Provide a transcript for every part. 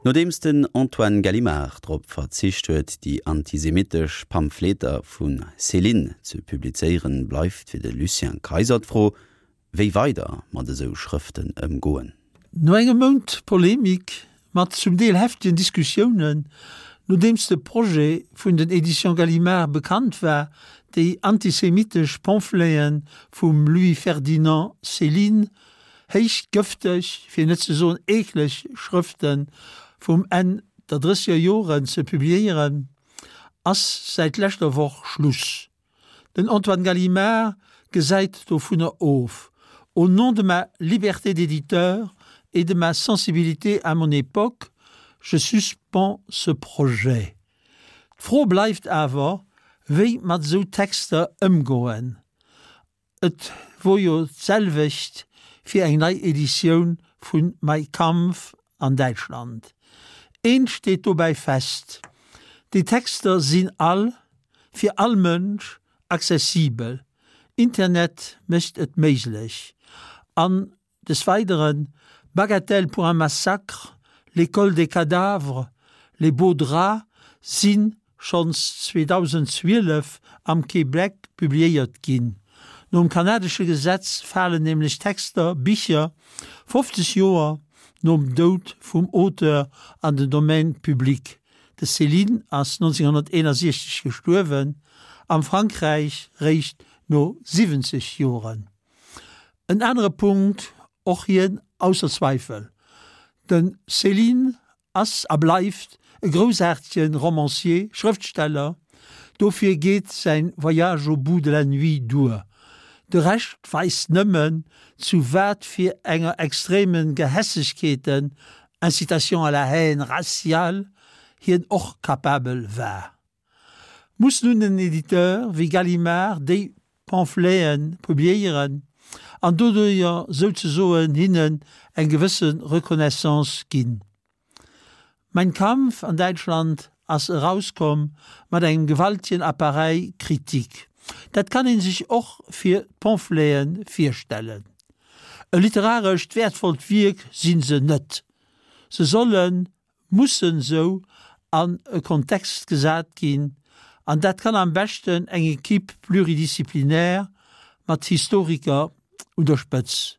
Nodeems den Antoine Gallimard drop verzicht huet, déi antisemittesch Pamphleter vu Céline ze publizéieren, bleift fir de Lucien Kayser d'Fro, wéi weider mat esou Schrëften ëmgoen. No engem Mount Polemik mat zum Deel heftegen Diskussiounen, nodeems de Projet vun den Editions Gallimard bekannt war, déi antisemitesch Pamphlete vum Louis-Ferdinand Céline Héich gëfteg, fir net ze soen eekleg Schrëfte vum Enn der drësseger Joren ze publiéieren, ass säit leschter Woch Schluss. Den Antoine Gallimard gesäit dovunner of. Au nom de ma liberté d'éditeur et de ma sensibilité à mon époque, je suspends ce projet. D'Fro bleift awer, wéi mat esou Texter ëmgoen. Et wor jo d'selwecht fir eng nei Editioun vun Mein Kampf an Däitschland. Eent steet dobäi fest, déi Texter sinn all, fir all Mënsch accessibel, Internet mécht et méiglech an Des Weideren, Bagatelle pour un massacre, L'école des cadavres, Les beaux draps si schonns 2012 am Québec publiéiert ginn. Nom kanadesche Gesetz falen nämlech Texter, Bicher 50 Joer nom Doud vum Auteur an den Domaine public. De Céline ass 1961 gestuerwen, am Frankräich réischt no 70 Joren. En anere Punkt, och hien ausser Zweifel, de Céline ass a bleift e groussaartege Romancier, Schrëftsteller, dofir geet säin Voyage au bout de la nuit duer. De Rescht weist nëmmen, zu wat fir enger extreme Gehässegkeeten, incitation à la haine raciale, hien och capabel war. Muss nun en Editeur wéi Gallimard déi Pamphleten publiéieren an doduerjer souzesoen hinnen eng gewësse Reconnaissance ginn? Mein Kampf an Däitschland ass erauskomm mat engem gewaltigen Appareil critique. Dat kann een sech och fir d'Pamphleten virstellen. E literarescht wäertvollt Wierk sinn se net. Se sollen mussen sou an e Kontext gesat ginn, an dat kann am beschten eng Equipe pluridisciplinaire mat Historiker un der Spëtz.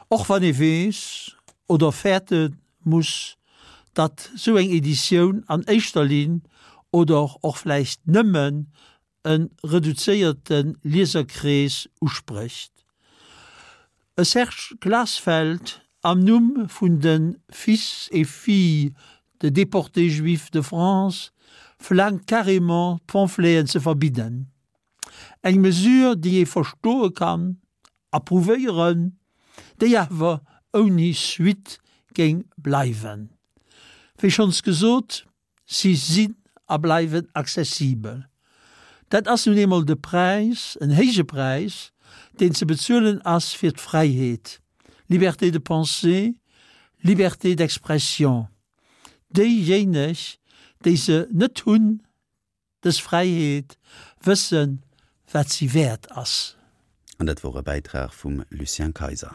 Och wann ee weess oder fäerte muss, datt sou eng Editioun an éischter Linn oder och vläicht nëmmen e reduzéierte Lieserkrees usprécht. E Serge Glasfeld am Numm vun de Fils et filles de déportés juifs de France verlaangt carrément d'Pamphleten ze verbidden. Eng Mesure déi ee verstoe kann, approuvéieren, déi awer ouni Suite géing bleiwen. Wéi schonns gesot, Si sinn a bleiwen accessibel. Dat ass nun eemol de Präis, en héije Präis, deen ze bezuelen ass fir d'Fräiheet, Liberté de pensée, Liberté d'expression. Déijéineg, déi se net hunn, dës Fräiheet, wëssen, wat si wäert ass. An dat wor e Bäitrag vum Lucien Kayser.